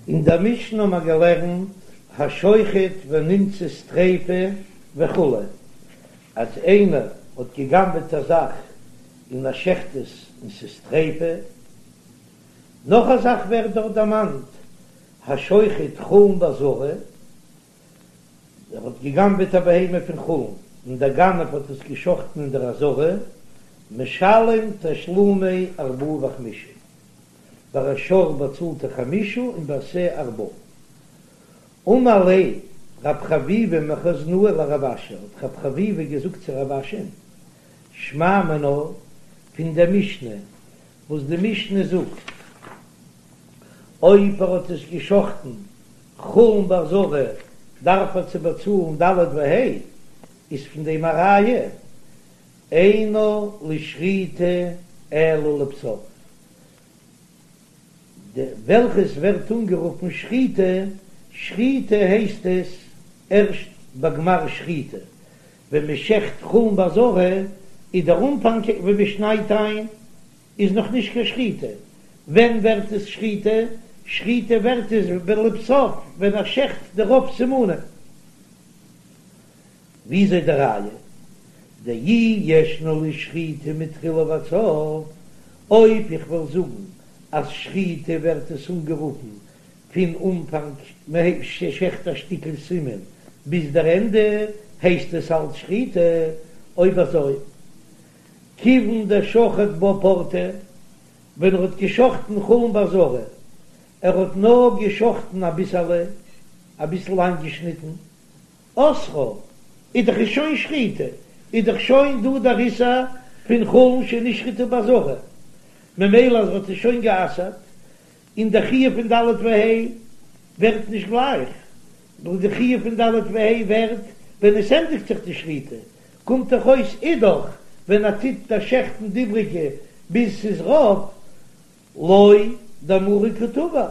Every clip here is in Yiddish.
אין דער משנה האבן מיר געלערנט השוחט ונמצאת טריפה וכו', אז איינער האט גע'גנב'עט א זאך און ער שעכט עס און ס'איז טריפה. נאך א זאך ווערט דארט דערמאנט, השוחט חולין בעזרה, ער האט גע'גנב'עט א בהמה פון חולין און דער גנב האט עס גע'שחט'ן אין דער עזרה, משלם תשלומי ארבעה וחמישה. ביי א שור באצאלט ער חמישה און ביי שה ארבעה. אמר ליה רב חביבא מחוזנאה לרב אשי, האט רב חביבא געזאגט צו רב אשי'ן, שמע מינה, פון דער משנה, וואס די משנה זאגט, אויב ער האט עס געשחטן חולין בעזרה דארף ער צו באצאלן ד' וה', איז פון דעם א ראיה, אינה לשחיטה אלא לבסוף, די וועלכעס ווערט אנגערופן שחיטה, שחיטה הייסט עס ערשט ביי גמר שחיטה, ווען מען שעכט חולין בעזרה איז דער אנפאנג ווען מען שניידט איין איז נאך נישט קיין שחיטה, ווען ווערט עס שחיטה? שחיטה ווערט עס לבסוף ווען ער שעכט די רוב סימנים. וויאזוי די ראיה? דאי ישנה לשחיטה מתחילה ועד סוף, אויב איך וועל זאגן אז שחיטה ווערט עס אנגערופן פון אנפאנג מען שעכט א שטיקל סימן ביז דער ענדע הייסט עס אלץ שחיטה, אויב אזוי כיוון דשחט בה פורתא ווען ער האט געשחטן חולין בעזרה ער האט נאר געשחטן אביסעלע אביסל איינגעשניטן אסרה, איז דאך איז שוין שחיטה, איז דאך שוין דא דער איסור פון חולין שנשחטו בעזרה, ממילא אז ער האט עס שוין גע'אסר'ט, און דער חיוב פון ד' וה' ווערט נישט גלייך, נאר די חיוב פון ד' וה' ווערט ווען עס ענדיגט זיך די שחיטה, קומט דאך אויס אידך ווען ער טוט דערשעכטן די איבריגע ביז ס'איז רוב, לא דמריה קא טבח,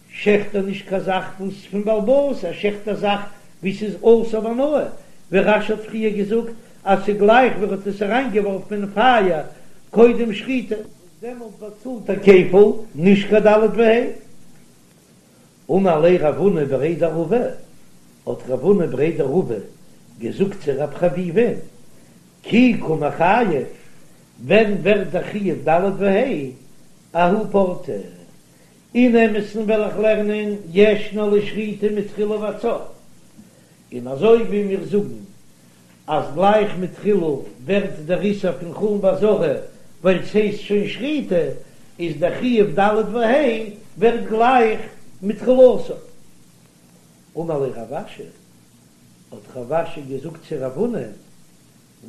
שעכט ער נישט קיין זאך וואס פון בעל הבית, ער שעכט א זאך ווי ס'איז אסור בהנאה, ווי רש"י האט פריער געזאגט אז ס'גלייך ווי ער האט עס אריינגעווארפן אין פייער קודם שחיטה. וואס דעמאלט באצאלט ער כפל, נישט קיין ד' וה'. אמר ליה רב הונא בריה דרבא, האט רב הונא בריה דרבא געזאגט צו רב חביבא'ן, כי קא מיחייב, ווען ווערט דער חיוב ד' וה' אההוא פורתא? אין אמת'ן וועל איך לערנען ישנה לשחיטה מתחילה ועד סוף, און אזוי ווי מיר זאגן אז גלייך מתחילה ווערט דער איסור פון חולין בעזרה ווייל ס'הייסט שוין שחיטה, איז דער חיוב ד' וה' ווערט גלייך מתחילתו. אמר ליה רב אשי, האט רב אשי געזאגט צו רב הונא,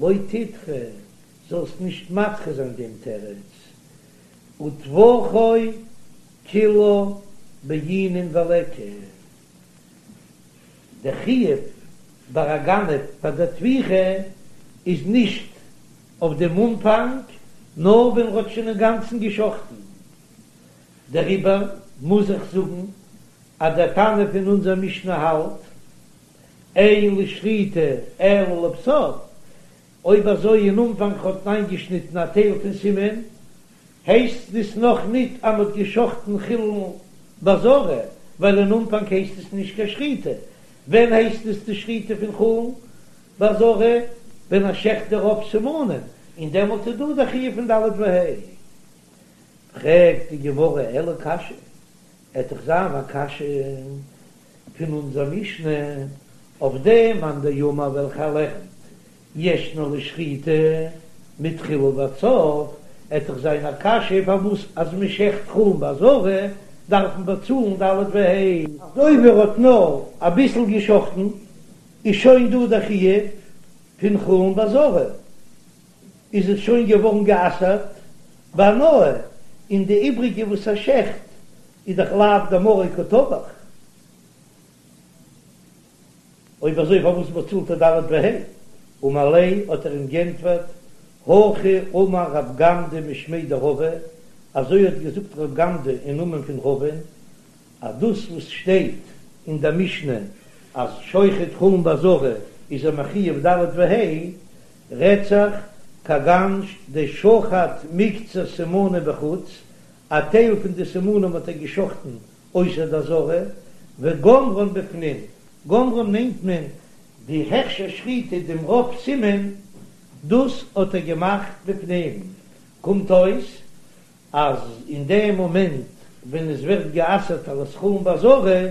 לא תדחי, זאלסט נישט מדחה זיין דעם תירוץ, וטבחו כולה בעינן וליכא, דער חיוב ביי א גנב פאר דער טביחה איז נישט אויף דעם אנפאנג, נאר ווען ר'האט שוין אינגאנצן גע'שחט'ן. דעריבער מוז איך זאגן אז דער תנא פון אונזער משנה האלט, אין לשחיטה אלא לבסוף, אויב אזוי אין אנפאנג האט מען איינגעשניטן א טייל פון סימן, הייסט עס נאך ניט אז מ'האט געשחטן חולין בעזרה, ווייל אין אנפאנג הייסט עס נישט קיין שחיטה. ווען הייסט עס די שחיטה פון חולין בעזרה? ווען ער שעכט די רוב סימנים, און דעמאלט איז דא די חיוב פון ד' וה'. פרעגט די גמרא אלא קשיא, עט דאך זיין א קשיא פון אונזער משנה אויף דעם מאן דאמר וועלכער לערנט ישנה לשחיטה מתחילה ועד סוף, עט דאך זיין א קשיא פארוואס אז מען שעכט חולין בעזרה דארף מען באצאלן ד' וה'. אזוי ווי ער האט נאר אביסל געשחטן איז שוין דא דער חיוב פון חולין בעזרה, איז עס שוין געווארן גע'אסר'ט בהנאה, און די איבריגע וואס ער שעכט איז דאך לאו דמריה קא טבח. אויב אזוי פארוואס באצאלט ער ד' וה'? אמר ליה האט ער אים גענטפערט, הכי אמר רב גמדא משמיה דרבא, אזוי האט געזאגט רב גמדא אין נאמען פון רבא'ן, אז דאס וואס שטייט אין דער משנה אז שוחט חולין בעזרה איז ער מחויב ד' וה', רעדט זיך כגון דשחט מקצת סימנים בחוץ, א טייל פון די סימנים האט ער געשחטן. אויסער די עזרה, וגמרן בפנים, גמרן מיינט מען די הכשר שחיטה דעם רוב סימן, דאס האט ער געמאכט בפנים, קומט אויס אז אין דעם מאמענט ווען עס ווערט גע'אסר'ט אלס חולין בעזרה,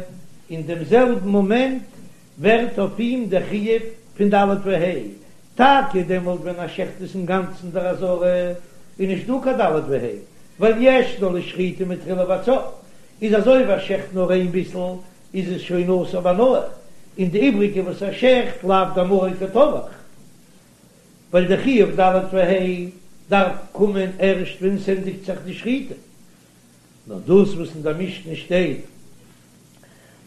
אין דעם זעלבן מאמענט ווערט אויף אים דער חיוב פון ד' וה', טאקע דעמאלט ווען ער שעכט עס אינגאנצן דער עזרה, איז נישט דא קיין ד' וה', ווייל ישנה לשחיטה מתחילה ועד סוף, איז אזוי ווי ער שעכט נאר איין ביסל איז עס שוין אסור בהנאה, און די איבריגע וואס ער שעכט לאו דמריה קא טבח. ווייל די חיוב ד' וה' דארף קומען ערשט ווען ס'ענדיגט זיך די שחיטה, נאר דאס וואס אין דער משנה שטייט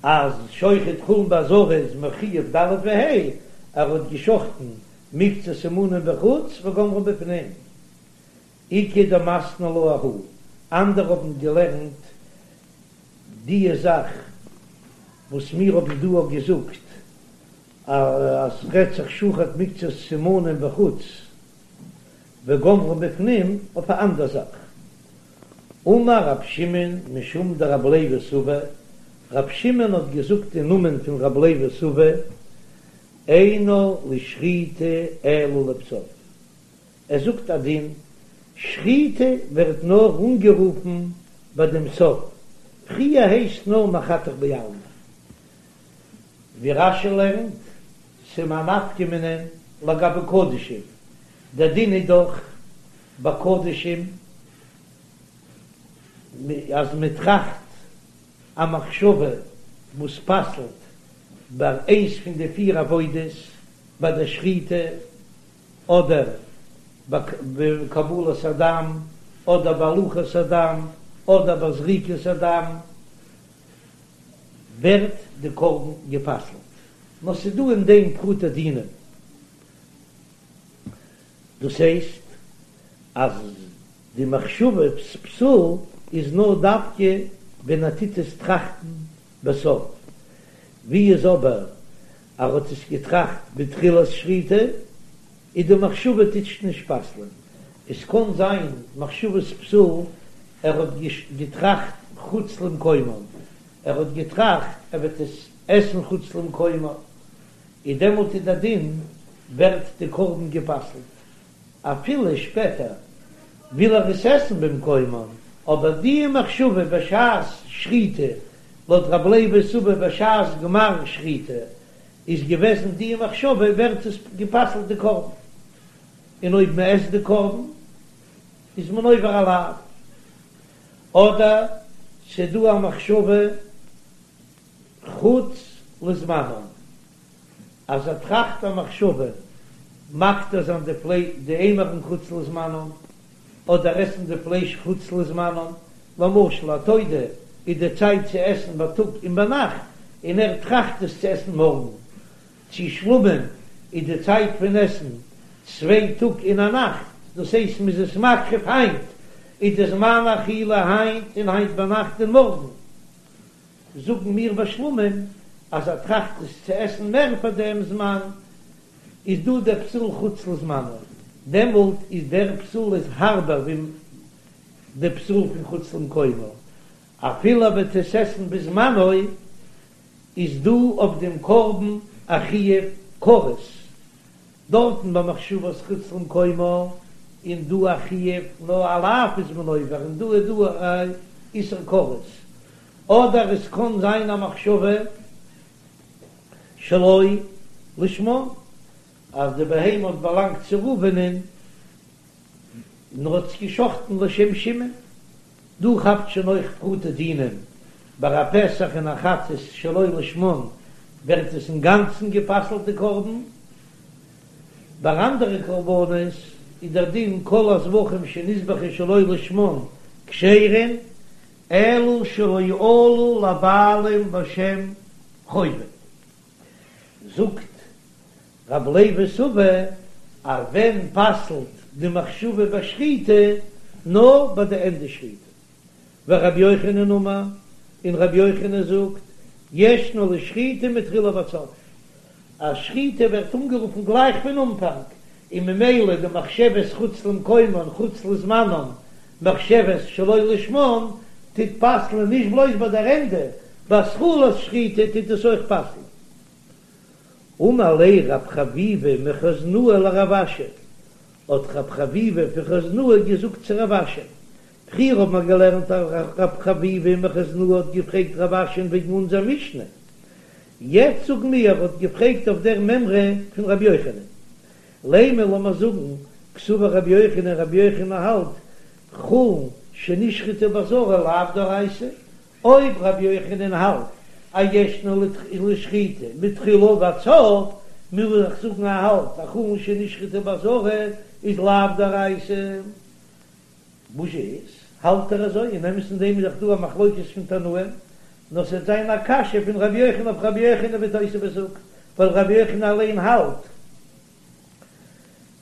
אז שוחט חולין בעזרה איז מחויב ד' וה', ער האט געשחטן מקצת סימנים בחוץ וגמרן בפנים. איכא דמתני לה אהא, אנדערע האבן געלערנט דיע זאך וואס מיר האבן דא געזאגט אז ס'רעדט זיך שחט מקצת סימנים בחוץ וגמרן בפנים אויף א אנדער זאך. אמר רב שמעון משום דרב לוי סבא, רב שמעון האט געזאגט אין נאמען פון רב לוי סבא, אינה לשחיטה אלא לבסוף. ער זאגט א דין, שחיטה ווערט נאר אנגערופן ביי דעם סוף, פריער הייסט נאר מחתך בעלמא. ווי רש"י לערנט, ס'איז א נפקא מינה לגבי קדשים, דער דין איז דאך ביי קדשים אז מען טראכט א מחשבה וואס פסל'ט ביי איינס פון די פיר עבודות, ביי דער שחיטה אדער ביי קבלת הדם אדער ביי הולכת הדם אדער ביי זריקת הדם, ווערט די קרבן גע'פסל'ט, נאר ס'איז דא אין דעם פרטי דינים, דאס הייסט אז די מחשבת פסול איז נאר דווקא ווען ער טוט עס טראכטן בסוף, ווי איז אבער ער האט עס געטראכט בתחילת שחיטה, איז די מחשבה טוט נישט פסל'ען, עס קען זיין מחשבת פסול, ער האט געטראכט חוץ למקומן, ער האט געטראכט ער וועט עס עסן חוץ למקומו, איז דעמאלט איז דער דין ווערט די קרבן גע'פסל'ט, אפילו שפעטער וויל ער עס עסן במקומן, אבער די מחשבה בשעת שחיטה, לויט רב לוי סבא בשעת גמר שחיטה איז געוועזן די מחשבה ווערט עס גע'פסל'ט די קרבן, און אויב מען עסט די קרבן איז מען עובר א לאו, אדער ס'דא א מחשבה חוץ לזמנם, אז ער טראכט א מחשבה מקטיר זיין די פלייש די אימורין חוץ לזמנם, אדער עסן די פלייש חוץ לזמנם, למשל א תודה איז די צייט צו עסן בייטאג און ביינאכט, און ער טראכט עס צו עסן מארגן, צו שלמים איז די צייט פון עסן צוויי טאג און א נאכט, דאס הייסט מ'איז עס מקריב היינט, איז די זמן אכילה היינט און היינט ביינאכט און מארגן. זאגן מיר ביי שלמים אז ער טראכט עס צו עסן מער פאר דעם זמן, איז דא דער פסול חוץ לזמנו, דעמאלט איז דער פסול איז הארבער ווי די פסול פון חוץ למקומו, אפילו ער וועט עס עסן בזמנו, איז דא אויף דעם קרבן א חיוב כרת, דארטן ביי מחשבת חוץ למקומו איז דא א חיוב נאר א לאו איז מען עובר און דא איז דא א איסור כרת, אדער עס קען זיין א מחשבה שלא לשמה אז די בהמה האט באלאנגט צו ראובנ'ען און ער האט עס געשחטן לשם שמעון, דא כאפט שוין אויך פרטי דינים, ביי א פסח און א חטאת שלא לשמן ווערט עס אינגאנצן גע'פסל'ט די קרבן, ביי אנדערע קרבנות איז דער דין כל הזבחים שנזבחו שלא לשמן כשרין אלא שלא עלו לבעלים לשם חובה. זאגט רב לוי סבא אז ווען פסל'ט די מחשבה ביי שחיטה נאר ביי די ענדע שחיטה, ורבי יוחנן אמר, און רבי יוחנן זאגט, ישנה לשחיטה מתחילה ועד סוף, אז שחיטה ווערט אנגערופן גלייך פון אנפאנג, און ממילא די מחשבת חוץ למקומן חוץ לזמנן מחשבת שלא לשמן. טוט פסל'ען נישט בלויז ביי דער ענדע, ביי התחלת שחיטה טוט עס אויך פסל'ען. אמר ליה רב חביבא מחוזנאה לרב אשי, האט רב חביבא פון חוזנאה געזאגט צו רב אשי, פריער האט מען געלערנט אז רב חביבא מחוזנאה האט געפרעגט רב אשי'ן וועגן אונזער משנה, יעצט זאגן מיר ער האט געפרעגט אויף דער מימרא פון רבי יוחנן. לימא לאמיר זאגן קסבר רבי יוחנן, רבי יוחנן האלט חולין שנשחטו בעזרה לאו דאורייתא, אויב רבי יוחנן האלט אז ישנה לשחיטה מתחילה ועד סוף, מוז איך זאגן ער האלט אז חולין שנשחטו בעזרה איז לאו דאורייתא. וואס איז, האלט ער אזוי? אין אמת אין דעם איז דאך דא א מחלוקת פון תנאים, נאר ס'וועט זיין א קשיא פון רבי יוחנן אויף רבי יוחנן ווי תוספות זאגט, ווייל רבי יוחנן אליין האלט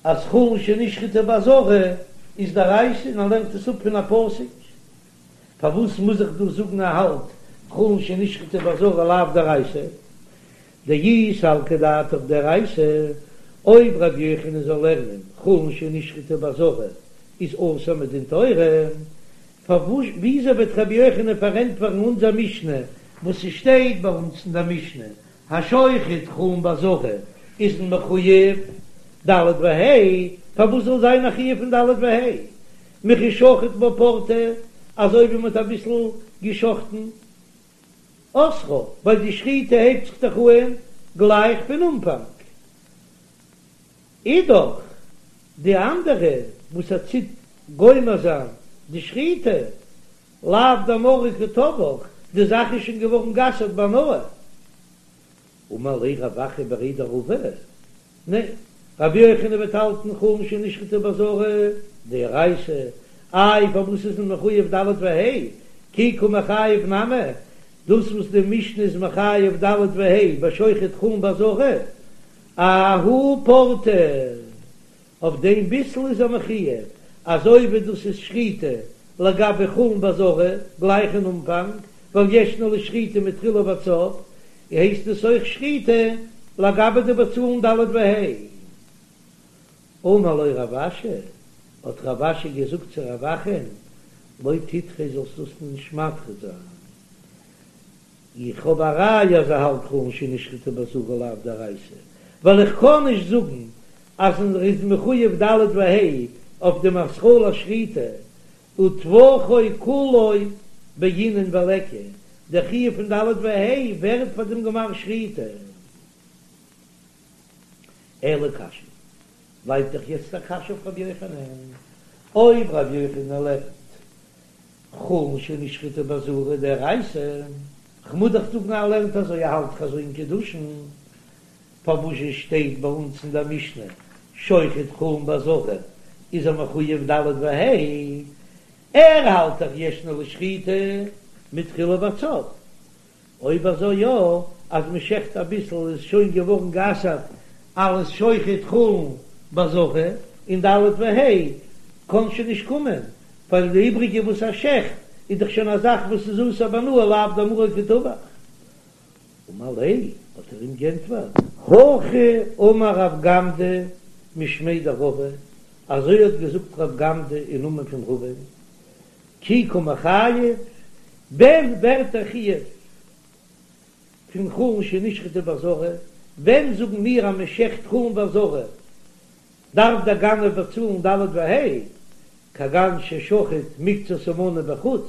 אז חולין שנשחטו בעזרה איז דאורייתא און ער לערנט עס אפ פון א פסוק. פארוואס מוז איך דא זאגן ער האלט חולין שנשחטו בעזרה לאו דאורייתא? דאי סלקא דעתך דאורייתא, אויב רבי יוחנן זאל לערנען חולין שנשחטו בעזרה איז אסור מדין תורה, פארוואס וויאזוי וועט רבי יוחנן פארענטפערן אונזער משנה וואס ס'שטייט ביי אונז אין דער משנה השוחט חולין בעזרה איז מען מחויב ד' וה', פארוואס זאל זיין א חיוב פון ד' וה' מכי שחט בה פורתא אזוי ווי מ'האט אביסל געשחטן אסרה, ווייל די שחיטה הייבט זיך דאך אהן גלייך פון אנפאנג. אידך די אנדערע וואס ער טוט גומר זיין די שחיטה, לאו דמריה קא טבח, די זאך איז שוין געווארן גע'אסר'ט בהנאה. אמר ליה רב אחא בריה דרבא, ניין, רבי יוחנן וועט האלטן חולין שנשחטו בעזרה דאורייתא, איי פארוואס איז מען מחויב ד' וה', כי קא מיחייב נמי, דאס וואס די משנה איז מחייב ד' וה' בשוחט חולין בעזרה, אההוא פורתא, אויף דעם ביסל איז ער מחויב, אזוי ווי דאס איז שחיטה לגבי חולין בעזרה גלייך אין אנפאנג, ווייל ישנה לשחיטה מתחילה ועד סוף, הייסט עס אויך שחיטה לגבי די באצאלן ד' וה'. אמר לו רב אשי, האט רב אשי געזאגט צו רב אחא'ן, לא תדחה זאלסט דאס נישט מדחה זיין, איך האב א ראיה אז ער האלט חולין שנשחטו בעזרה לאו דאורייתא, ווייל איך קען נישט זאגן אז ער איז מחויב ד' וה' אויף דעם התחלת שחיטה, וטבחו כולו בעינן וליכא, דער חיוב פון ד' וה' ווערט פאר דעם גמר שחיטה. אלא קשיא, בלייבט דאך יעצט א קשיא אויף רבי יוחנן, אויב רבי יוחנן לערנט חולין שנשחטו בעזרה דאורייתא, כ'מוז דאך זאגן ער לערנט אזוי ער האלט דאך אזוי אין קידושין, פארוואס שטייט ביי אונז אין דער משנה שוחט חולין בעזרה איז ער מחויב ד' וה', ער האלט דאך ישנה לשחיטה מתחילה ועד סוף, אויב אזוי יא, אז מען שעכט אביסל איז שוין געווארן גע'אסר'ט אלס שוחט חולין בעזרה, און ד' וה' קען שוין נישט קומען, ווייל די איבריגע וואס ער שעכט איז דאך שוין א זאך וואס איז אסור בהנאה לאו דמריה קא טבח. אמר ליה, האט ער אים גענטפערט, הכי אמר רב גמדא משמיה דרבא, אזוי האט געזאגט רב גמדא אין נאמען פון רבא, כי קא מיחייב, ווען ווערט דער חיוב פון חולין שנשחטו בעזרה, ווען זאגן מיר אז מען שעכט חולין בעזרה דארף דער גנב באצאלן ד' וה', כגון ששחט מקצת המנה בחוץ,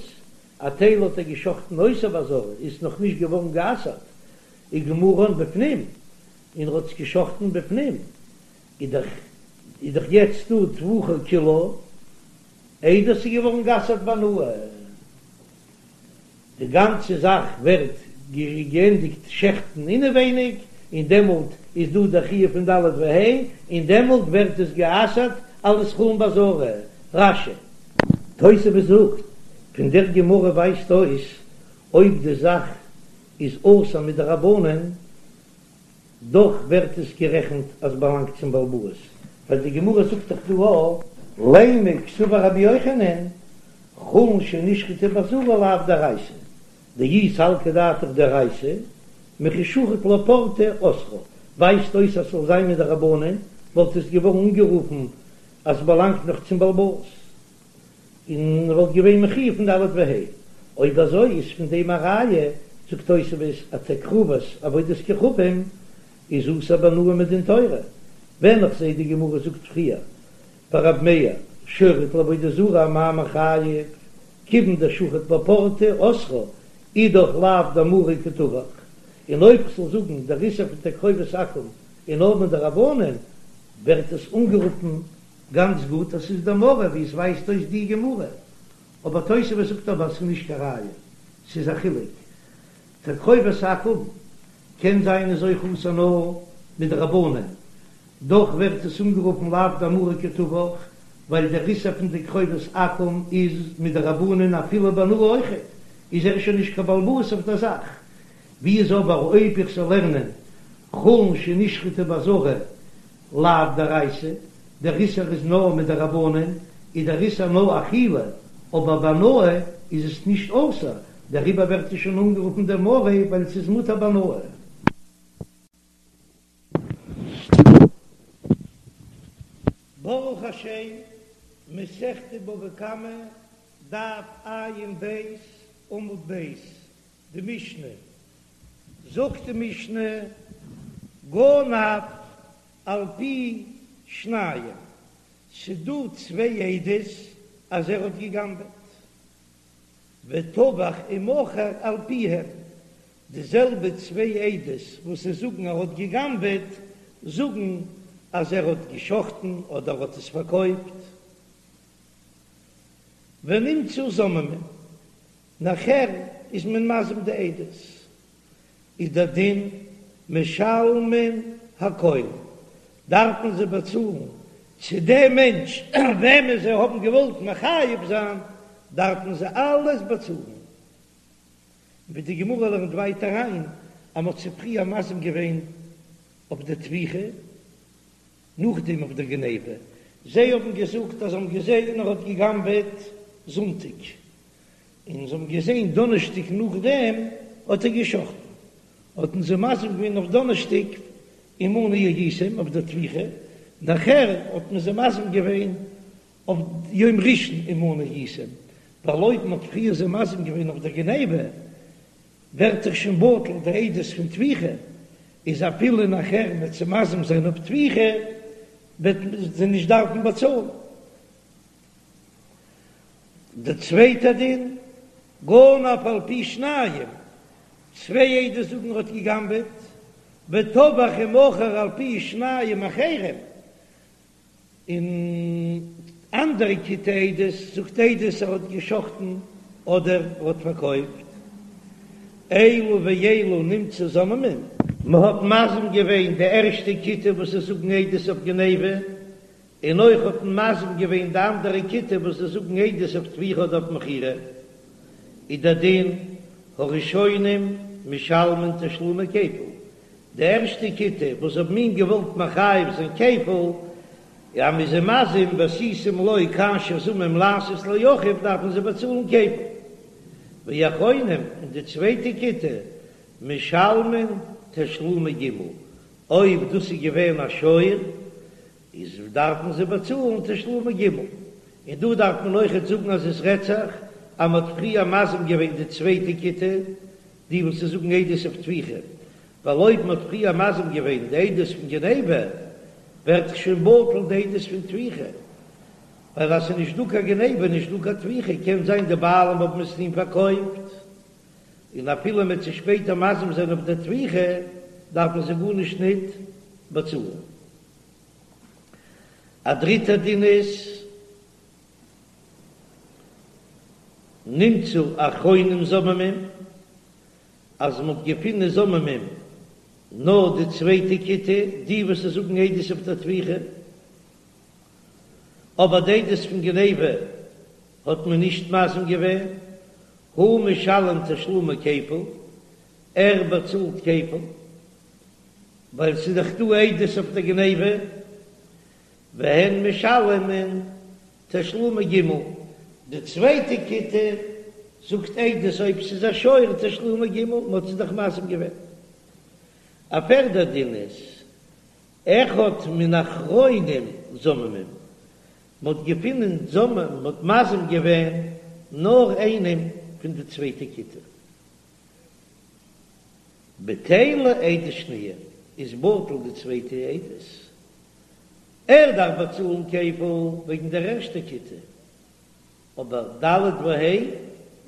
א טייל האט ער געשחטן אויסער בעזרה, איז נאך נישט געווארן גע'אסר'ט, וגמרן בפנים, און ער האט עס געשחטן בפנים, איז דאך איז דאך יעצט דא טבחו כולו, איידער ס'איז געווארן גע'אסר'ט בהנאה. די גאנצע זאך ווערט געענדיגט שעכטן אינעווייניג, און דעמאלט איז דא דער חיוב פון ד' וה', און דעמאלט ווערט עס גע'אסר'ט אלס חולין בעזרה. רש"י. תוספות זאגט, פון דער גמרא ווייזט אויס אויב די זאך איז אסור מדרבנן, דאך ווערט עס גערעכנט אז באלאנגט צום בעל הבית, ווייל די גמרא זאגט דאך דא א. לימא קסבר רבי יוחנן, חולין שנשחטו בעזרה לאו דאורייתא, דאי סלקא דעתך דאורייתא, מכי שחט לה פורתא אסרה, ווייזט אויס אז ס'זאל זיין מדרבנן, וואלט עס געווארן אנגערופן אז ס'באלאנגט נאך צום בעל הבית, און וואלט געווען מחויב פון ד' וה'. אויב אזוי איז פון דעם א ראיה, זאגט תוספות אז תקרובת עבודת כוכבים איז אסור בהנאה מדין תורה, ווען איך זעה די גמרא זאגט פריער ביי רב מאיר שוחט לעבודה זרה אמאי מיחייב, כיוון דשחט בה פורתא אסרה אידך לאו דמריה קא טבח, און אויב כ'זאל זאגן דער איסור פון תקרובת עכו"ם איז נאר מדרבנן, ווערט עס אנגערופן גאנץ גוט אז ס'איז דמריה ווי עס ווייזט אויס די גמרא, אבער תוספות זאגט אבער אז ס'איז נישט קיין ראיה, ס'איז א חילוק, תקרובת עכו"ם קען זיין איז אויך אסור נאר מדרבנן, דאך ווערט עס אנגערופן לאו דמריה קא טבח, ווייל דער איסור פון תקרובת עכו"ם איז מדרבנן אפילו בהנאה אויכעט, איז ער שוין נישט קיין בעל הבית אויף דער זאך. ווי איז אבער אויב איך זאל לערנען חולין שנשחטו בעזרה לאו דאורייתא, דער איסור איז נאר מדרבנן, איז דער איסור נאר אכילה, אבער בהנאה איז עס נישט אסור, דעריבער ווערט עס שוין אנגערופן דמריה ווייל עס איז מותר בהנאה. ברוך השם, מסכת בבא קמא, דף ע"ב, עמוד ב', די משנה, זאגט די משנה, גנב על פי שניים, ס'דא צוויי עדות אז ער האט געגנבעט, וטבח ומכר על פיהם, די זעלבע צוויי עדות וואס זיי זאגן ער האט געגנבעט, זאגן אז ער האט געשחטן אדער האט עס פארקויפט. ונמצאו זוממין, נאכער איז מען מזים די עדות, איז דער דין משלמין הכל, דארף מען זיי באצאלן, צו דעם מענטש וועמען זיי האבן געוואלט מחייב זיין, דארף מען זיי אלעס באצאלן. ווי די גמרא לערנט ווייטער אריין אז מ'האט זיי פריער מזים געווען אויף די טביחה, נאכדעם אויף די גניבה, זיי האבן געזאגט אז זיי האבן געזען ער האט גע'גנב'עט זונטאג, און זיי האבן געזען דאנערשטאג נאכדעם האט ער גע'שחט'ן, האט מען זיי מזים געווען אויף דאנערשטאג עמנו הייתם אויף די טביחה, נאכער האט מען זיי מזים געווען אויף יום ראשון עמנו הייתם, ווייל אויב מען האט פריער זיי מזים געווען אויף דער גניבה, ווערט דאך שוין בטל די עדות פון טביחה, איז אפילו נאכער מ'וועט זיי מזים זיין אויף טביחה, וועט מען זיי נישט דארפן באצאלן. דער צווייטער דין, גנב על פי שניים, צוויי עדות זאגן ער האט געגנבעט, וטבח ומכר על פי שניים אחרים, און אנדערע כיתה עדות זאגט עדות ער האט געשחטן אדער ער האט פארקויפט, אלו ואלו נמצאו זוממין. מען האט מזים געווען די ערשטע כיתה וואס זיי זאגן עדות אויף גניבה, און אויך האט מען מזים געווען די אנדערע כיתה וואס זיי זאגן עדות אויף טביחה אדער אויף מכירה, איז דער דין הראשונים משלמין תשלומי כפל, די ערשטע כיתה וואס האבן אים געוואלט מחייב זיין כפל, אז מ'איז זיי מזים ועשיתם לו כאשר זמם לעשות לאחיו דארפן זיי באצאלן כפל. ואחרונים און די צווייטע כיתה משלמין תשלומי ג', אויב דאס איז געווען א שור איז דארפן זיי באצאלן תשלומי ג'. און דא דארף מען אויכעט זאגן אז עס רעדט זיך אז מען האט פריער מזים געווען די צווייטע כיתה, די וואס זיי זאגן עדות אויף טביחה, ווייל אויב מען האט פריער מזים געווען די עדות פון גניבה, ווערט דאך שוין בטל די עדות פון טביחה, ווייל אז ס'איז נישט דא קיין גניבה איז נישט דא קיין טביחה, קען זיין די בעלים האבן עס אים פארקויפט, און אפילו מען וועט זיי שפעטער מזים זיין אויף די טביחה, דארף מען זיי גארנישט ניט באצאלן. א דריטער דין איז. נמצאו אחרונים זוממים, אז מ'האט געפונען זוממים נאר די צווייטע כיתה, די וואס זיי זאגן עדות אויף דער טביחה, אבער די עדות פון גניבה האט מען נישט מזים געווען, הוא משלם תשלומי כפל, ער באצאלט כפל, ווייל ס'איז דאך דא עדות אויף דער גניבה, והן משלמין תשלומי ג', די צווייטע כיתה זאגט עדות אויב ס'איז א שור תשלומי ג', מ'האט זיי דאך מזים געווען. א פערדע דין איז אחד מן האחרונים זוממים, מ'האט געפונען זוממים, מ'האט מזים געווען נאר איינעם. פון די צווייטע כיתה. בטלה עדות שניה, איז בטל די צווייטע עדות. ער דארף באצאלן כפל וועגן דער ערשטע כיתה, אבער ד' וה'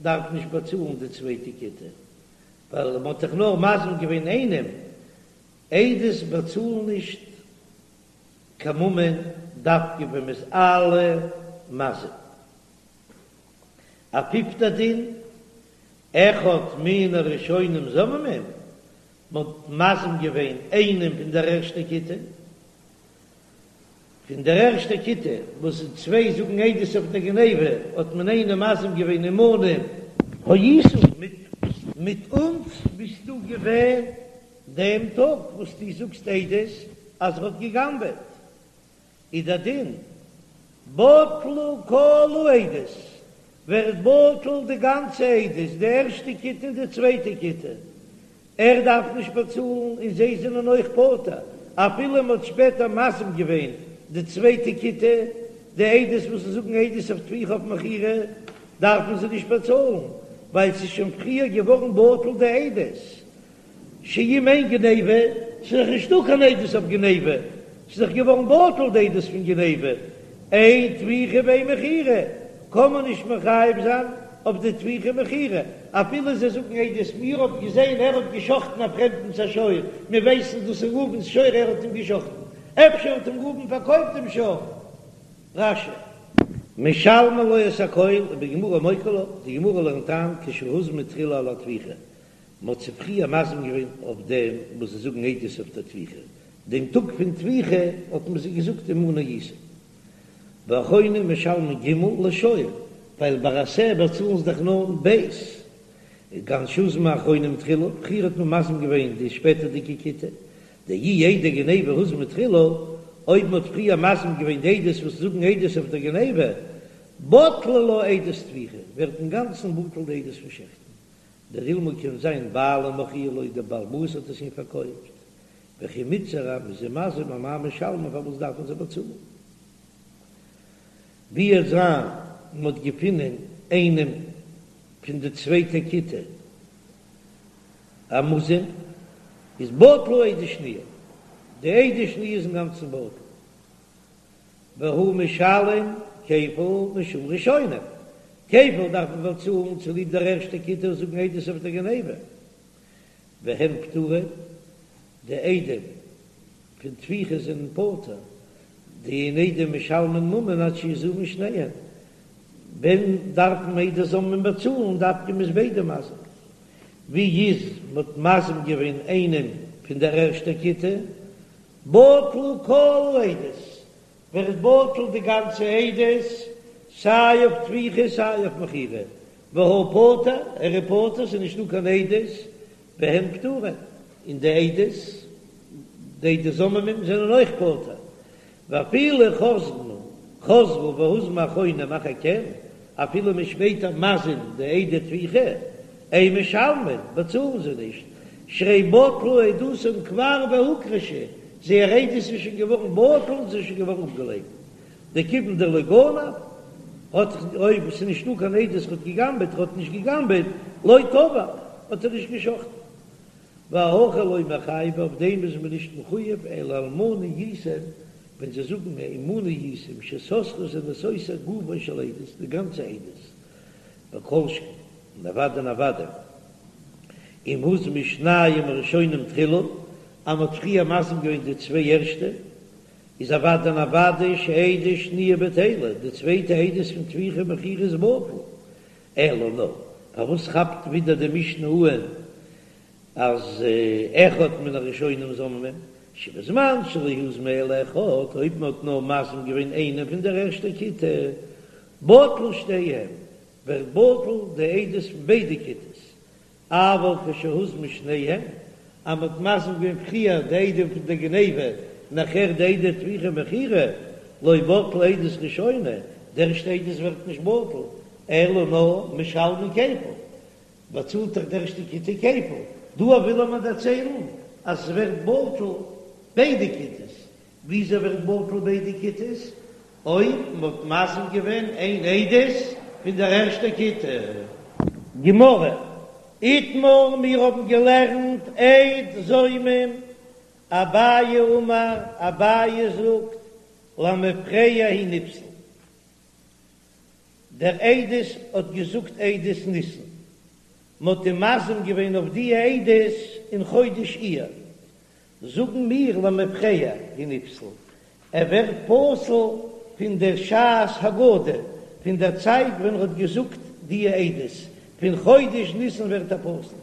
דארף נישט באצאלן די צווייטע כיתה, ווייל מען האט דאך נאר מזים געווען איינעם, עדות באצאלן נישט קיין ממון דווקא ווען מען איז אלע מזים. א פיפטע דין, אחד מן הראשונים זוממים, מען האט מזים געווען איינעם פון דער ערשטע כיתה, פון דער ערשטע כיתה וואס צוויי זאגן עדות אויף דער גניבה, האט מען איינעם מזים געווען עמנו היית, מיט אונז ביסטו געווען דעם טאג וואס דו זאגסט עדות אז ער האט גע'גנב'עט, איז דער דין בטלו כל העדות, ווערט בטל די גאנצע עדות, די ערשטע כיתה און די צווייטע כיתה, ער דארף נישט באצאלן און זיי זענען אויך פטור, אפילו מען האט שפעטער מזים געווען די צווייטע כיתה, די עדות וואס זאגן עדות אויף טביחה אויף מכירה, דארפן זיי נישט באצאלן, ווייל ס'איז שוין פריער געווארן בטל די עדות. שאם אין גניבה, ס'איז דאך נישטא קיין עדות אויף גניבה, ס'איז דאך געווארן בטל די עדות פון גניבה, אין טביחה ואין מכירה, קען מען נישט מחייב זיין אויף די טביחה מכירה, אפילו זיי זאגן עדות, מיר האבן געזען ער האט געשחטן א פרעמדנס א שור, מיר ווייסן דאס איז ראובן'ס שור ער האט אים געשחטן, אפשר האט אים ראובן פארקויפט דעם שור. רש"י. משלמין לו את הכל, ובגמרא מוקי לה, די גמרא לערנט איין כשהוזמו תחילה על הטביחה, מען האט זיי פריער מזים געווען אויף דעם וואס זיי זאגן עדות אויף דער טביחה, דעם טאג פון טביחה האט מען זיי געזאגט עמנו היית. ואחרונים משלמין ג' לשור, ווייל ביי א שה באצאלן זיי דאך נאר ב'. כגון שהוזמו אחרונים תחילה, פריער האט מען מזים געווען די שפעטערדיגע כיתה, דאי עדי גניבה הוזמו תחילה, אויב מען האט פריער מזים געווען די עדות וואס זאגן עדות אויף דער גניבה, בטלה לה עדות טביחה, ווערט אינגאנצן בטל די עדות פון שעכטן, דאילמא קען זיין בעלים מכרוה לו דער בעל הבית האט עס אים פארקויפט, וכי מיתזר אז מ'איז אים מזים אמאי משלמין פארוואס דארפן זיי באצאלן? ווי וועט זיין מ'האט געפונען איינעם פון די צווייטע כיתה א מוזם איז בטלה עדות שניה, די עדות שניה איז אינגאנצן בטל. והוא משלם כפל משום ראשונים, כפל דארף מען באצאלן צוליב דער ערשטער כיתה וואס זאגן עדות אויף דער גניבה, והן פטורין, די עדים פון טביחה זענען פטור, דאין עדים משלמין ממון עד שיזומו שניהם, ווען דארפן עדי זוממין באצאלן דווקא מ'איז ביידע מזים, ווי איז מ'האט מזים געווען איינעם פון דער ערשטער כיתה, בטלו כל העדות, ווערט בטל די גאנצע עדות, סיי אויף טביחה סיי אויף מכירה, והוא פטור, ער איז פטור, ס'איז נישטא קיין עדות, והם פטורין, און די עדות, די עדי זוממים זענען אויך פטור, ואפילו חזרו, חזרו והוזמו אחרונים אחר כן, אפילו מ'איז שפעטער מזים די עדי טביחה, אין משלמין, באצאלן זיי נישט, שהרי בטלה עדותם כבר והוכחשה, זייער עדות איז שוין געווארן בטל און ס'איז שוין געווארן אפגעלייקנט, דכיון דלא גנב, האט אויב ס'איז נישטא קיין עדות ער האט גע'גנב'עט, ער האט נישט גע'גנב'עט, לא טבח, האט ער נישט גע'שחט'ן. ואהכי לא מיחייבי, אויף דעם איז מען נישט מחויב, אלא עמנו הייתם, ווען זיי זאגן עמנו הייתם שסתרו זענען סותר גופה של עדות, די גאנצע עדות, וכל שכן, און אוודאי און אוודאי, אם הוזמו שניים הראשונים תחילה, אז מ'האט פריער מזים געווען די צוויי ערשטע, איז אוודאי און אוודאי שעדות שניה בטלה, די צווייטע עדות פון טביחה ומכירה איז בטל, אלא נאר, פארוואס כאפט ווידער די משנה אהן אז אחד מן הראשונים זוממין, שבזמן שלא הוזמו אלא אחד, אויב מ'האט נאר מזים געווען איינעם פון דער ערשטער כיתה, בטלו שתיהם, ווערט בטל די עדות פון ביידע כיתות, אבל כשהוזמו שניהם, אז מ'האט מזים געווען פריער די עדים פון די גניבה, נאכער די עדי טביחה ומכירה, לא בטלה עדות ראשונה, די ערשטע עדות ווערט נישט בטל, אלא נאר משלמין כפל, באצאלט דאך די ערשטע כיתה כפל, דא וויל ער מיר דערציילן אז עס ווערט בטל ביידע כיתות, וויאזוי ווערט בטל ביידע כיתות? אויב מ'האט מזים געווען איין עדות פון דער ערשטער כיתה. גמרא, איתמר, מיר האבן געלערנט עד זומם, אביי אמר, אביי זאגט, למפרע הוא נפסל. דער עדות האט געזאגט עדות ניסן, מ'האט אים מזים געווען אויף די עדות אין חודש אייר, זאגן מיר למפרע הוא נפסל, ער ווערט פסול פון דער שעת הגדה, פון דער צייט ווען ער האט געזאגט די עדות, פון חודש ניסן ווערט ער פסול.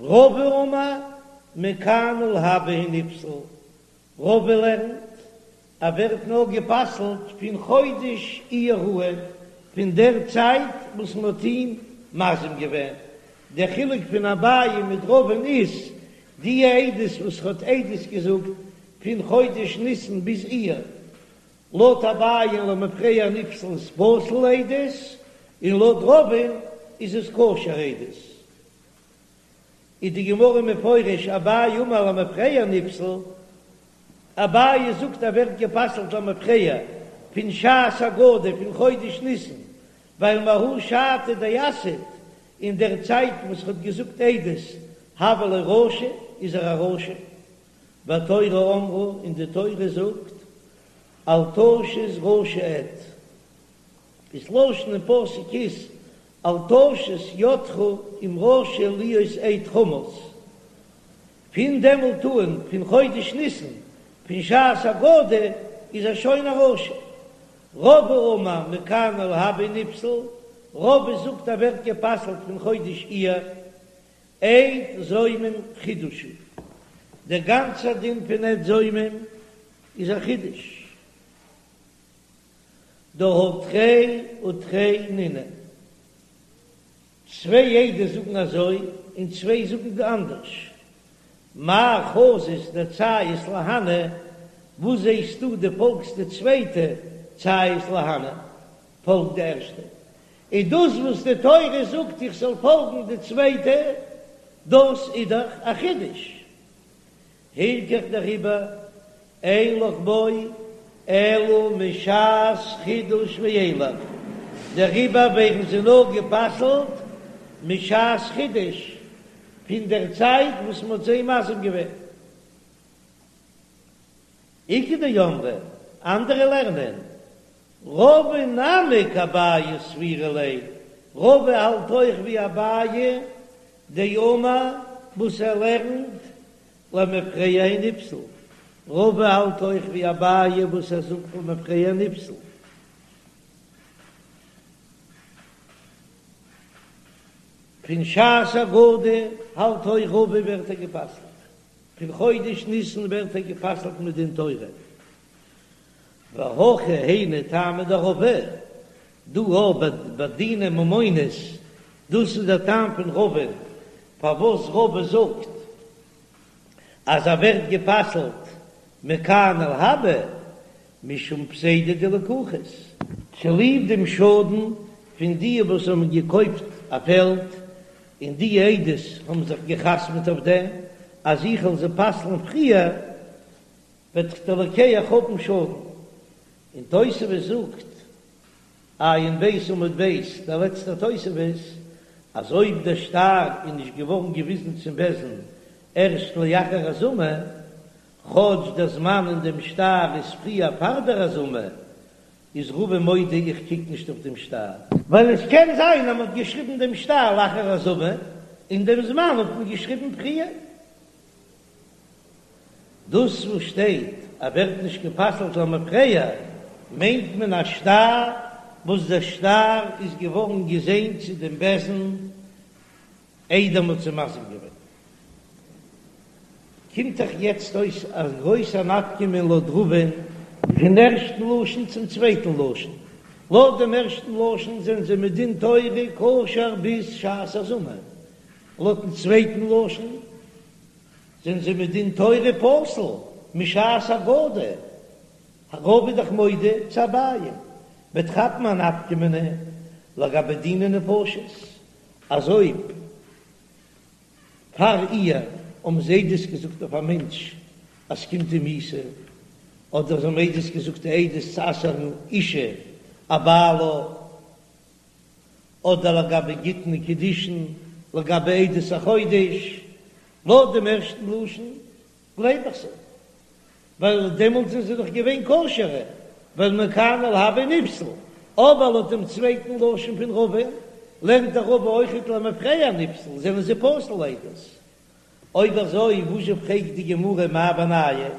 רבא אמר מכאן ולהבא הוא נפסל, רבא לערנט ער ווערט נאר גע'פסל'ט פון חודש אייר אן, פון דער צייט וואס מען האט אים מזים געווען. דער חילוק פון אביי מיט רבא'ן איז, די עדות וואס האט עדות געזאגט פון חודש ניסן ביז אייר, לויט אביי'ן למפרע נפסל איז פסול עדות, און לויט רבא'ן איז עס כשר עדות. איז די גמרא מפרש אביי אמר למפרע נפסל, אביי זאגט ער ווערט גע'פסל'ט למפרע פון שעת הגדה פון חודש ניסן, ווייל מההיא שעתא דאסהיד, אין דער צייט וואס ר'האט געזאגט עדות הוה ליה רשע איז ער א רשע, והתורה אמרה און די תורה זאגט אל תשת רשע עד. דאס לשון אין פסוק איז אל תשת ידך עם רשע להיות עד חמס, פון דעמאלט אן, פון חודש ניסן, פון שעת הגדה, איז ער שוין א רשע. רבא אמר מכאן ולהבא נפסל, רבא זאגט ער ווערט גע'פסל'ט פון חודש אייר, עד זומם חידוש הוא, דער גאנצער דין פון עד זומם איז א חידוש. דהא תרי ותרי נינהו, צוויי עדות זאגן אזוי און צוויי זאגן אנדערש, מאי חזית דציית להני, וואס זעסטו דו פאלגסט די צווייטע ציית להני, פאלג די ערשטע, און דאס וואס די תורה זאגט איך זאל פאלגן די צווייטע, דאס איז דאך א חידוש. הילכך דעריבער אין לך בו אלא משעת חידוש ואילך, דעריבער ווערן זיי נאר גע'פסל'ט משעת חידוש, פון דער צייט וואס מען האט זיי מזים געווען. איכא דאמרי, אנדערע לערנען, רבא נמי כאביי סבירא ליה, רבא האלט אויך ווי אביי דאמר וואס ער לערנט למפרע הוא נפסל, רבא האלט אויך ווי אביי וואס ער זאגט למפרע נפסל. פון שעת הגדה האלט אויך רבא ווערט ער גע'פסל'ט, פון חודש ניסן ווערט ער גע'פסל'ט מדין תורה. והכא היינו טעמא דרבא, דא אבער ביי דיני ממונות, דאס איז דער טעם פון רבא, פארוואס רבא זאגט אז ער ווערט גע'פסל'ט מכאן ולהבא, משום פסידא דלקוחות, צוליב דעם שאדן פון די וואס האבן געקויפט א פעלד, און די עדות האבן זיך גע'חתמ'ט אויף דעם אז איך וועל זיי פסל'ן פריער, וועט דער לוקח האבן שאדן. און תוספות זאגט, עיין ב' עמוד ב', דער לעצטער תוספות, אז אויב דער שטר איז נישט געווארן געוויזן צום בית דין ערשט לאחר הזמה, כאטש דער זמן אין דעם שטר איז פריער פאר דער הזמה, איז רבא מודה איך קוק נישט אויף דעם שטר. ווייל עס קען זיין אז מען האט געשריבן דעם שטר לאחר הזמה, און דעם זמן האט מען געשריבן פריער. דאס וואס שטייט אז ווערט נישט גע'פסל'ט למפרע, מיינט מען א שטר וואס דער שטר איז געווארן געזען צו דעם בית דין איידער מ'האט זיי מזים געווען. קומט דאך יעצט אויס א גרויסע נפקא מינה לויט רבא'ן פון ערשטן לשון צום צווייטן לשון. לויט דעם ערשטן לשון זענען זיי מדין תורה כשר ביז שעת הזמה, לויטן צווייטן לשון זענען זיי מדין תורה פסול משעת הגדה, רבא איז דאך מודה צו אביי, וועט כאפן א נפקא מינה לגבי דיני נפשות, אז אויב פאר אייר האבן זיי עדות געזאגט אויף א מענטש אז ס'קומט אים מיתה, אדער זיי האבן עדות געזאגט די עדות צו אסר'ן אשה אבעלה. אדער לגבי גיטין און קידושין, לגבי עדות החודש, לויט דעם ערשטן לשון גלייב איך זיי, ווייל דעמאלט זענען זיי דאך געווען כשר'ע, ווייל מכאן ולהבא נפסל, אבער לויט דעם צווייטן לשון פון רבא, לערנט דער רבא אויכעט למפרע נפסל, זענען זיי פסול לעדות. אויב אזוי וואזשע פרעגט די גמרא מאי בינייהו,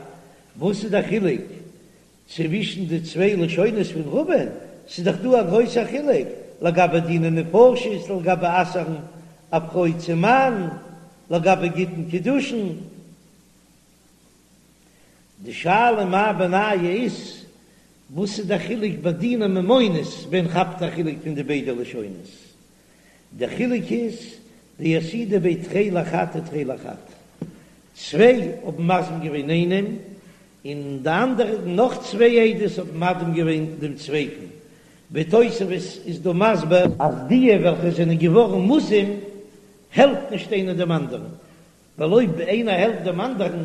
וואס איז דער חילוק צווישן די צוויי לשונות פון רבא'ן, ס'איז דאך דא א גרויסער חילוק לגבי דיני נפשות, לגבי אסר'ן א פרוי צום מאן, לגבי גיטין קידושין. די שאלה מאי בינייהו איז, וואס איז דער חילוק ביי דיני ממונות ווען כאפט א חילוק פון די ביידע לשונות? דער חילוק איז דאסהידו בי תרי לחד ותרי לחד, צוויי האבן מזים געווען איינעם און די אנדערע נאך צוויי עדות האבן מזים געווען דעם צווייטן, ווי תוספות איז דא מסביר אז דיע וועלכע זענען געווארן מוזם העלפט נישט איינער דעם אנדערן, ווייל אויב איינער העלפט דעם אנדערן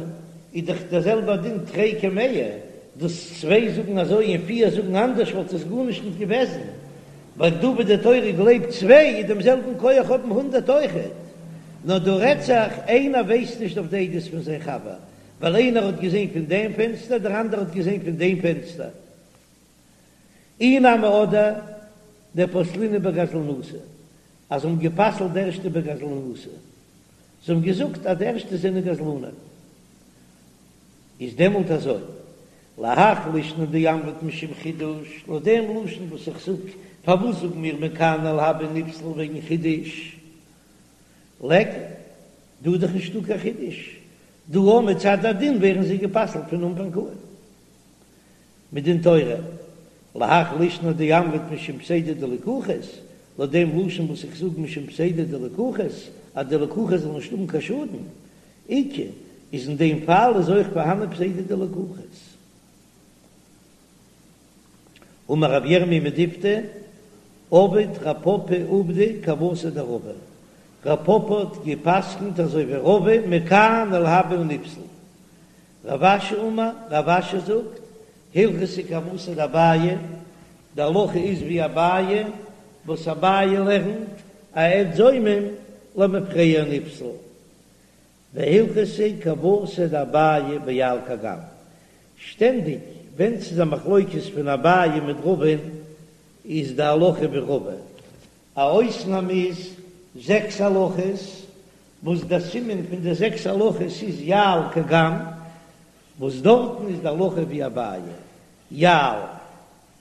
איז דאך דער זעלבער דין תרי כמאה, דאס צוויי זאגן אזוי און פיר זאגן אנדערש וואלט עס גארנישט נישט געוועזן, ווייל דא ווי די תורה גלייבט צוויי איז דעם זעלבן כח האבן הונדערט אויכעט, נאר דא רעדט זיך איינער ווייסט נישט אויף די עדות פון זיין חבר, ווייל איינער האט געזען פון דעם פענסטער דער אנדערער האט געזען פון דעם פענסטער. אי נמי אדער דפסלינהו בגזלנותא, אז זיי האבן גע'פסל'ט די ערשטע בגזלנותא, זיי האבן געזאגט אז די ערשטע זענען גזלנים, איז דעמאלט אזוי, להך לישנא דאמרת משום חידוש, לויט דעם לשון וואס איך זאג, פארוואס זאגן מיר מכאן ולהבא נפסל וועגן חידוש? ליכא, דא איז דאך נישטא קיין חידוש, דא אויך מצד הדין ווערן זיי גע'פסל'ט פון אנפאנג אן. מדין תורה, להך לישנא דאמרת משום פסידא דלקוחות, לויט דעם לשון וואס איך זאג משום פסידא דלקוחות, אז די לקוחות זאלן נישט האבן קיין שאדן, איכא, איז אין דעם פאל איז אויך פארהאנען פסידא דלקוחות. אמר רב ירמי' מדיפתי, עבד רב פפא עובדא כוותיה דרבא, רב פפא האט גע'פסק'נט אזוי ווי רבא מכאן ולהבא נפסל, רב אשי אמר, רב אשי זאגט, הלכתא כוותיה דאביי, די הלכה איז ווי אביי, וואס אביי לערנט א עד זומם למפרע נפסל, והלכתא כוותיה דאביי ביע"ל קג"ם, שטענדיג ווען ס'איז א מחלוקת פון אביי מיט רבא'ן איז די הלכה ווי רבא, א אויסנאם איז זעקס הלכות וואס דער סימן פון די זעקס הלכות איז יע"ל קג"ם, וואס דארטן איז די הלכה ווי אביי, יע"ל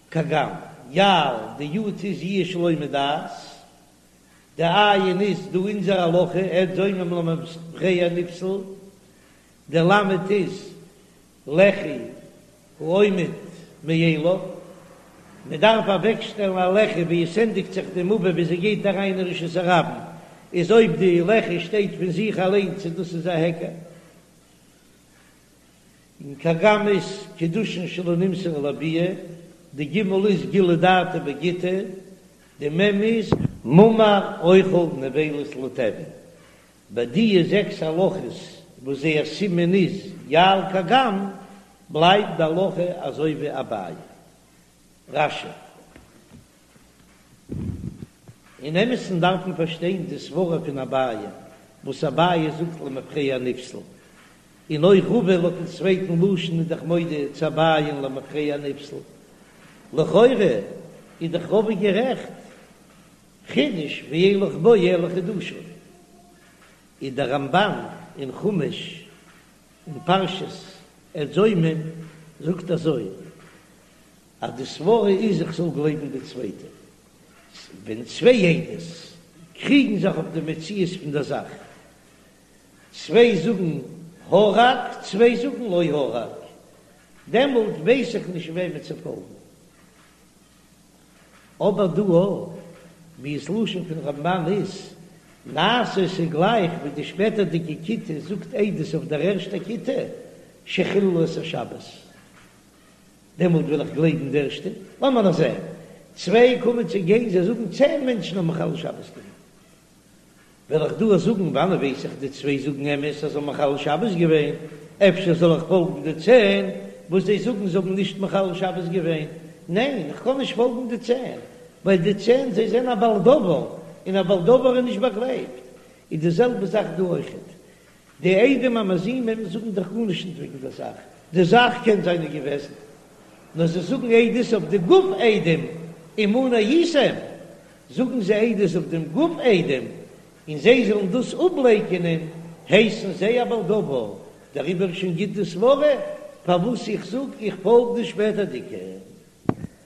קג"ם, יע"ל, די יו"ד איז יאוש שלא מדעת, די עי"ן איז דא אונזער הלכה עד זומם למפרע נפסל, די למד איז לחי העומד מאליו, מען דארף אוועקשטעלן א לחי ווי עס ענדיגט זיך די מבוי ווי זי גייט אריין אין רשות הרבים, איז אויב די לחי שטייט פון זיך אליין צו דאס איז א היכר. און קג"ם איז קידושין שלא נמסרו לביאה, די גימל איז גילוי דעתא בגיטא, די מ' איז מומר אוכל נבילות לתיאבון, ביי דיע זעקס הלכות וואס זייער סימן איז יע"ל קג"ם, בלייבט די הלכה אזוי ווי אביי. רש"י. אין אמת'ן דארף מען פארשטיין די סברה פון אביי, וואס אביי זאגט למפרע נפסל, און אויך רבא לויטן צווייטן לשון איז דאך מודה צו אביי'ן למפרע נפסל. לכאורה איז דאך רבא גערעכט. חידוש ואין לך בו אלא חידושו, איז דער רמב"ן אין חומש אין פרשת עד זומם זאגט אזוי אז די סברה איז איך זאל גלייבן די צווייטע, ווען צוויי עדות קריגן זיך אויף די מציאות פון דער זאך, צוויי זאגן הרג צוויי זאגן לא הרג, דעמאלט ווייס איך נישט וועמען צו פאלגן. אבער דא ווי עס לשון פון רמב"ן איז, נעשה ס'איז גלייך ווי די שפעטערדיגע כיתה זאגט עדות אויף דער ערשטע כיתה שחיללו את השבת, דעמאלט וועל איך גלייבן די ערשטע, לאמיר נאר זען, צוויי קומען צו גיין זיי זאגן צען מענטשן האבן מחלל שבת געווען. וועל איך דא זאגן, וואנען ווייס איך די צוויי זאגן אמת אז זיי האבן מחלל שבת געווען, אפשר זאל איך פאלגן די צען וואס זיי זאגן זיי האבן נישט מחלל שבת געווען? ניין, איך קען נישט פאלגן די צען. ווייל די צען זיי זענען א בעל דבר, און א בעל דבר איז נישט באגלייבט, איז די זעלבע זאך דא אויכעט, די עדים המזימים זאגן דאך גארנישט נישט וועגן דער זאך, די זאך קען זיין איז געוועזן, נאר זיי זאגן עדות אויף די גוף עדים, עמנו הייתם, זאגן זיי עדות אויף דעם גוף עדים, און זיי זאלן דאס אפלייקענען, הייסן זיי א בעל דבר, דעריבער איז שוין גוט די סברה פארוואס איך זאג איך פאלג די שפעטערדיגע.